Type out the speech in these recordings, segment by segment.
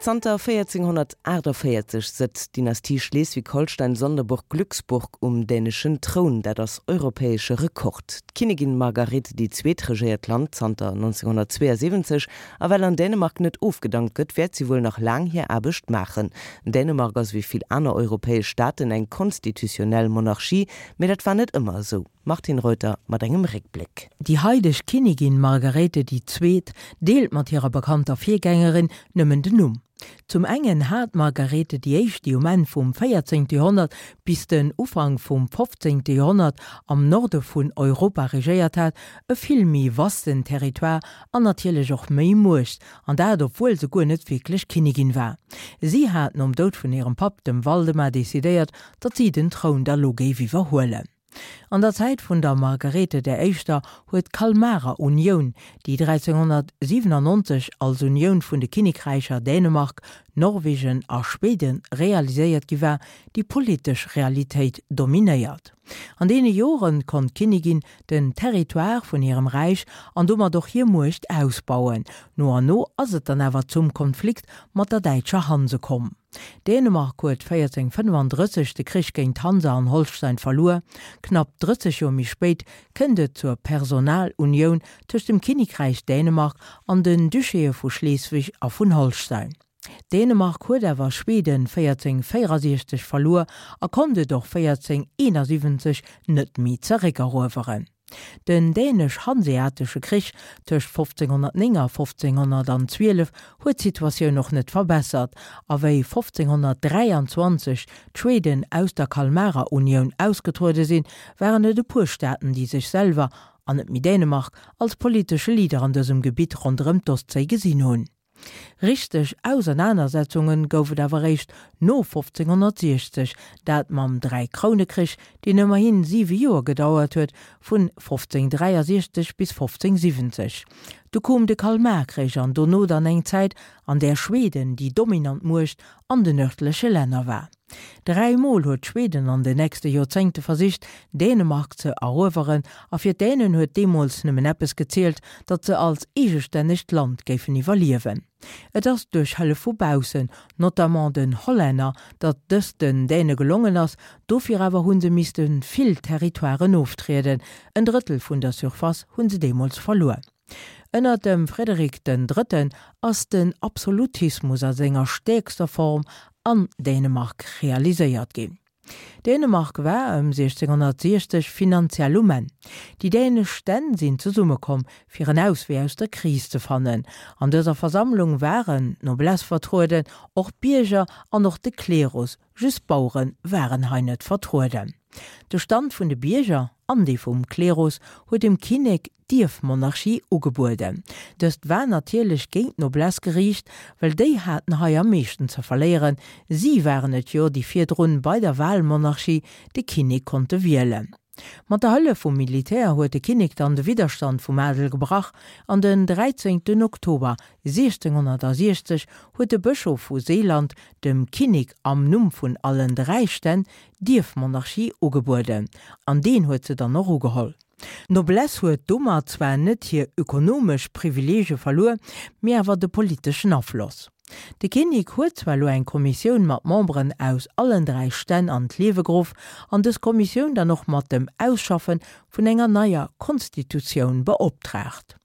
Zanter 1448 sëtzt d'Dynastie Schleswig-Holstein-Sonderburg-Glücksburg um däneschen Troun. Dat ass europäesche Rekord. D'Kinnigin Margarethe déi Zweet regéiert d'Land zanter 1972 a well an Dänemark net ofgedankt gëtt, wäert si wuel nach laang hir Aarbecht maachen. Dänemark ass ewéi vill aner europäesch Staaten eng konstitutionnell Monarchie, mee dat war net ëmmer esou. Martine Reuter mat engem Réckbléck. Déi haideg Kinnigin Margarethe déi Zweet deelt mat hirer bekannter Virgängerin nëmmen den Numm. Zum engen hat d'Margarethe déi Éischt, déi um Enn vum 14. Joerhonnert bis den Ufank vum 15. Joerhonnert am Norde vun Europa regéiert hat, e vill méi vasten Territoire an natierlech och méi Muecht, an dat obwuel se guer net wierklech Kinnigin war. Si hat nom Doud vun hirem Papp, dem Waldemar, decidéiert, datt si den Troun da lo géif iwwerhuelen. An der Zäit vun der Margarethe der Éischter huet d'Kalmarer Unioun, déi 1397 als Unioun vun de Kinnekräicher Dänemark, Norwegen a Schweden realiséiert gi war, déi politesch Realitéit dominéiert. An deene Jore konnt d'Kinnigin den Territoire vun hirem Räich an domat och hir Muecht ausbauen. No an no ass et dann awer zum Konflikt mat der däitscher Hanse komm. Dänemark huet 1435 de Krich géint d'Hansa an Holstein verluer. Knapp 30 Joer méi spéit kënnt et zur Personalunioun tëscht dem Kinnekräich Dänemark an den Duchéë vu Schleswig a vun Holstein. Dänemark huet awer Schweden 1464 verluer a konnt et och 1471 net méi zeréckerueweren. Den Dänesch-Hanseatesche Krich tëscht 1509 a 1512 huet d'Situatioun och net verbessert, a wéi 1523 d'Schweden aus der Kalmarer Unioun ausgetruede sinn, waren et e puer Staaten, déi sech selwer, an net méi Dänemark, als politesche Leader an dësem Gebitt ronderëm d'Ostséi gesinn hunn. Richteg Ausernanersetzunge gouf et awer eréischt no 1560, dat mam Dräikrounekrich, deen ëmmerhi siwe Joer gedauert huet, vun 1563 bis 1570. Du koom de Kalmarkrich an dono dann eng Zäit, an där Schweden déi dominant Muecht an den nërdleche Länner war. Dräi Mol huet Schweden an den nächste Joerzéngte versicht, Dänemark ze erueweren, a fir d'Dänen huet deemools nëmmen eppes gezielt, datt se als eegestännegt Land géifen iwwerliewen. Et ass duerch Hëllef vu baussen, notamment den Hollänner, datt dëst den Däne gelongen ass, dofir awer hu se misste vill Territoiren oftrieden, en Drëttel vun der Surface hu se deemools verluer. Ënner dem Frederik den Drëtten ass den Absolutismus a senger stäerkster Form an Dänemark realiséiert ginn. Dänemark war ëm 1660 finanziell um Enn. Déi dänesch Stänn sinn zesummekomm, fir en Auswee aus der Kris ze fannen. An dëser Versammlung waren d'Noblesse vertrueden, och d'Bierger an och de Klerus, just d'Bauere waren hei net vertrueden. De Stand vun de Bierger an dee vum Klerus huet dem Kinnek d'Ierfmonarchie ugebueden. Dëst war natierlech géint d'Noblesse geriicht, well déi haten hei am meeschten ze verléieren, si waren et jo, déi virdrun bei der Wahlmonarchie de Kinnek konnte wielen. Mat der Hëllef vum Militär huet de Kinnek dann de Widderstand vum Adel gebrach an den 13 Oktober 1660 huet de Bëschof vu Seeland dem Kinnek am Numm vun allen 3 Stänn d'Ierfmonarchie ugebueden an deen huet se dann och ugeholl. D'Noblesse huet domat zwar net hir ökonomesch Privileege verluer, mee awer de politeschen Afloss. De Kinnek huet zwar elo eng Kommissioun mat Memberen aus allen 3 Stänn an d'Liewe geruff an dës Kommissioun dann och mat dem Ausschaffe vun enger neier Konstitutioun beoptraagt.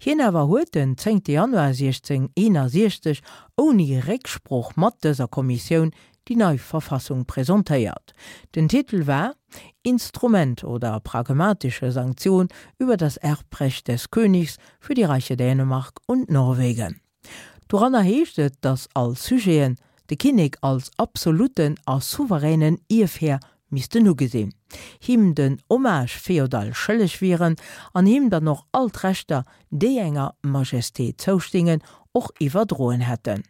Hien awer huet den 10 Januar 1661 ouni Récksprooch mat dëser Kommissioun déi nei Verfassung presentéiert. Den Titel war Instrument oder pragmatische Sanktion über das Erbrecht des Königs für die Reiche Dänemark und Norwegen. Doranner heescht et, datt all Sujeten de Kinnek als absoluten a souveränen Ierfhär missten ugesinn, him den Hommage féodal schëlleg wieren an him dann och all d'Rechter, déi enger Majesté zoustingen, och iwwerdroen hätten.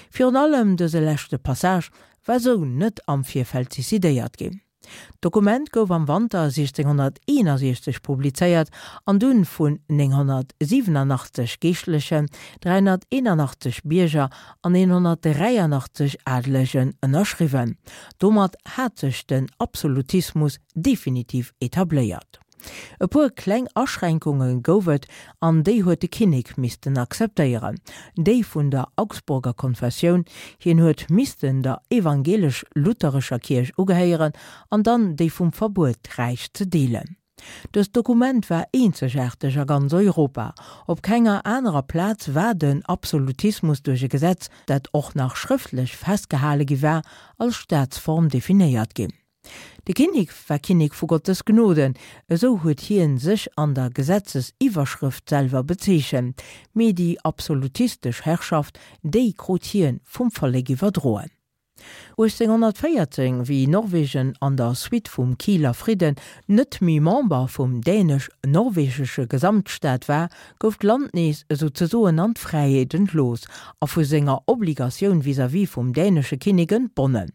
Virun allem dëse leschte Passage war sou net am Virfeld decidéiert ginn. D'Dokument gouf am Wanter 1661 publizéiert an dunn vun 987 Geeschtlechen, 381 Bierger an 183 Adelegen ënnerschriwwen. Domat hat sech den Absolutismus definitiv etabléiert. E puer kleng Aschränkunge gouf et, an déi huet de Kinnek missten akzeptéieren, déi vun der Augsburger Konfessioun, hien huet missten der evangelesch-lutherescher Kierch ugehéieren, an dann déi vum Verbuet d'Räich ze deelen. Dëst Dokument war eenzegaarteg a ganz Europa. Op kenger anerer Plaz war den Absolutismus duerch e Gesetz, dat och nach schrëftlech festgehale gi war, als Staatsform definéiert ginn. De Kinnek war Kinnek vu Gottes Gnoden, esou huet hien sech an der Gesetzesiwwerschrëft selwer bezeechent, mee déi absolutistesch Herrschaft, déi krut hien vum Vollek iwwerdroen. 1814, wéi Norwegen an der Suite vum Kieler Fridden net méi Member vum dänesch-norwegesche Gesamtstaat war, gouf d'Land nees esouzesoen an d'Fräiheet entlooss a vu senger Obligatioun vis-à-vis vum dänesche Kinnek entbonnen.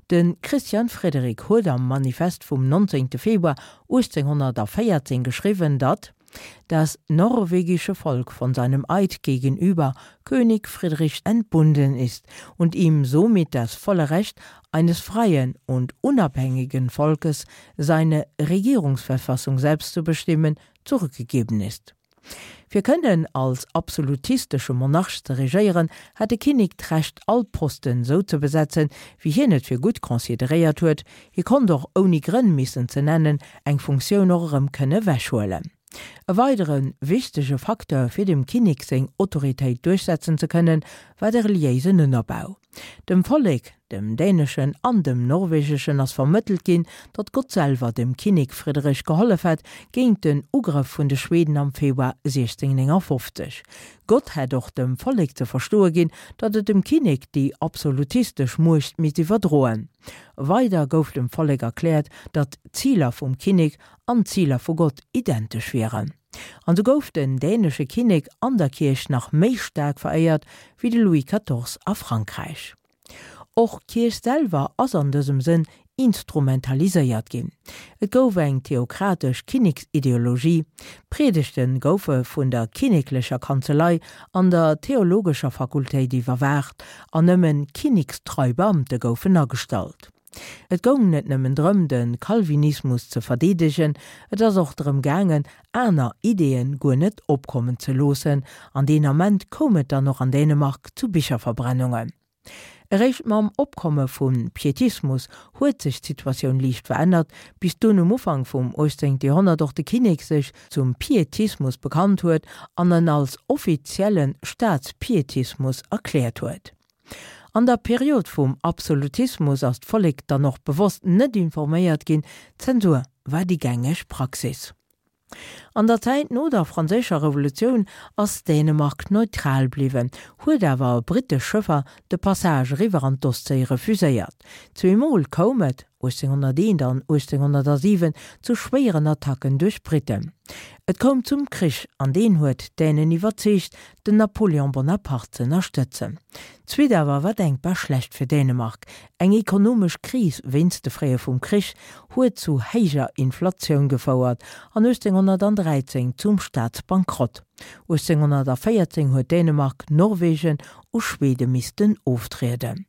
De Christian Frederik huet am Manifest vum 19. Februar 1814 geschriwwen, datt das norwegische Volk von seinem Eid gegenüber König Friedrich entbunden ist und ihm somit das volle Recht eines freien und unabhängigen Volkes, seine Regierungsverfassung selbst zu bestimmen, zurückgegeben ist. Fir kënnen als absolutistesche Monarch ze regéieren, hat de Kinnek d'Recht all Posten sou ze besetzen, wéi hien et fir gutt consideréiert huet. Hie konnt och, ouni Grënn missen ze nennen, eng Funktioun och erëm kënne wechhuelen. E weidere wichtege Facteur fir dem Kinnek seng Autoritéit duerchsetzen ze kënnen, war de reliéisen Ënnerbau. Dem Vollek, dem däneschen an dem norwegeschen, ass vermëttelt ginn, datt Gott selwer dem Kinnek Frederich gehollef hätt géint den Ugrëff vun de Schweden am Februar 1659. Gott hätt och dem Vollek ze verstoe ginn, datt et dem Kinnek déi absolutistesch Muecht misst iwwerdroen. Weider gouf dem Vollek erkläert, datt d'Ziler vum Kinnek an d'Ziler vu Gott identesch wieren. An sou gouf den dänesche Kinnek an der Kierch nach méi staark veréiert wéi de Louis quatorze a Frankräich. Och d'Kierch selwer ass an dësem Sënn instrumentaliséiert ginn. Et gouf eng theokratesch Kinneksideologie, d'Priedegte goufe vun der kinneklecher Kanzelei an der theologescher Fakultéit iwwerwaacht an nëmmen kinnekstrei Beamte goufen agestallt. Et goung net nëmmen drëm, de Calvinismus ze verdeedegen, et ass och drëm gaangen, aner Ideeën guer net opkommen ze loossen, an deen Ament koum et dann och an Dänemark zu Bicherverbrennungen. Eréischt mam Opkomme vum Pietismus huet sech d'Situatioun liicht verännert, bis dunn um Ufank vum 18. Joerhonnert och de Kinnek sech zum Pietismus bekannt huet an en als offizielle Staatspietismus erkläert huet. An der Period vum Absolutismus ass d'Vollek dann och bewosst net informéiert ginn, Zensur war déi gängeg Praxis. An der Zäit no der Franséischer Revolutioun ass Dänemark neutral bliwwen, huet awer brittesch Schëffer de Passage eriwwer an d'Ostséi refuséiert. Zweemol koum et, 1801 an 1807, zu schwéieren Attacken duerch Britten. Et koum zum Krich an deen huet d'Dänen iwwerzeegt, den Napoléon Bonaparte z'ënnerstëtzen. D'Suite awer war denkbar schlecht fir Dänemark, Eng ekonomesch Kris wéinst de Fréie vum Krich huet zu héijer Inflatioun gefouert an 1813 zum Staatsbankrott. 1814 huet Dänemark Norwegen u Schwede missten oftrieden.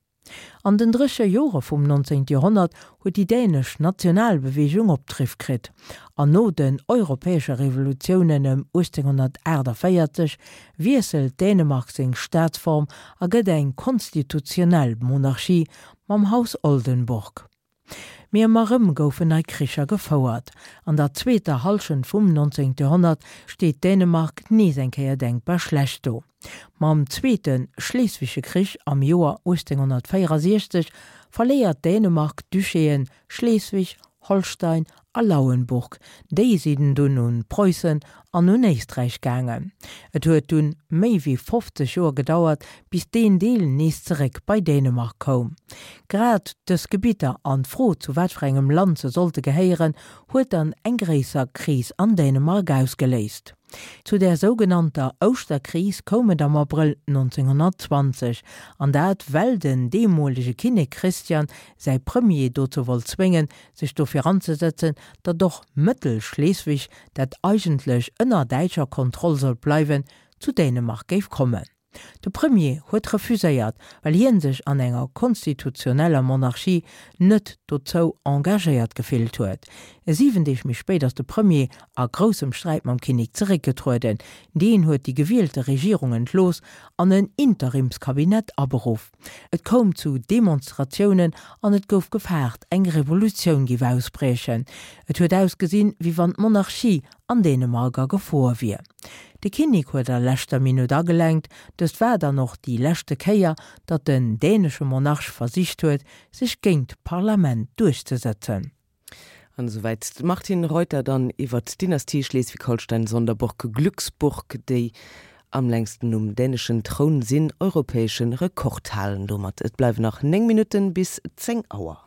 An den dréche Jore vum 19. Joerhonnert huet déi dänesch Nationalbeweegung Opdriff kritt, an no den europäesche Revolutiounen ëm 1848 wiesselt Dänemark seng Staatsform a gëtt eng konstitutionell Monarchie mam Haus Oldenburg. Mee ëmmer erëm goufen nei Kricher gefouert. An der zweeter Hallschent vum 19. Joerhonnert steet Dänemark nees eng Kéier denkbar schlecht do. Mam Zweete Schleswigsche Krich am Joer 1864 verléiert Dänemark d'Duchéen Schleswig, Holstein a Lauenburg, déi sinn dunn un Preussen an un Éisträich gaangen. Et huet dunn méi wéi 50 Joer gedauert, bis deen Deel nees zeréck bei Dänemark koum. Grad dës Gebitter an d'Fro zu wat fir engem Land se sollte gehéieren, huet dann eng gréisser Kris an Dänemark ausgeléist. Zu där sougenannter Ouschterkris koum et am Abrëll 1920, an dat well den deemolege Kinnek Christian säi Premier dozou wollt zwéngen, sech dofir anzesetzen, datt och Mëttel-Schleswig, dat eigentlech ënner däitscher Kontroll sollt bleiwen, zu Dänemark géif kommen. De Premier huet refuséiert, well hien sech an enger konstitutioneller Monarchie net dozou engagéiert gefillt huet. 7 Deeg méi spéit ass de Premier a groussem Sträit mam Kinnek zeréckgetrueden. Deen huet déi gewielte Regierung entlooss an en Interimskabinett aberuff. Et koum zu Demonstratiounen an et gouf gefaart, eng Revolutioun géif ausbriechen. Et huet ausgesinn, wéi wann d'Monarchie an Dänemark a Gefor wier. De Kinnek huet a leschter Minutt agelenkt. Dëst war dann och déi leschte Kéier, datt den dänesche Monarch versicht huet, sech géint d'Parlament duerchzesëtzen. An esouwäit d'Martine Reuter dann iwwert d'Dynastie Schleswig-Holstein-Sonderburg-Glücksburg, déi am längsten um däneschen Troun sinn, europäesche Rekord halen domat. Et bleiwen nach 9 Minutten bis 10 Auer.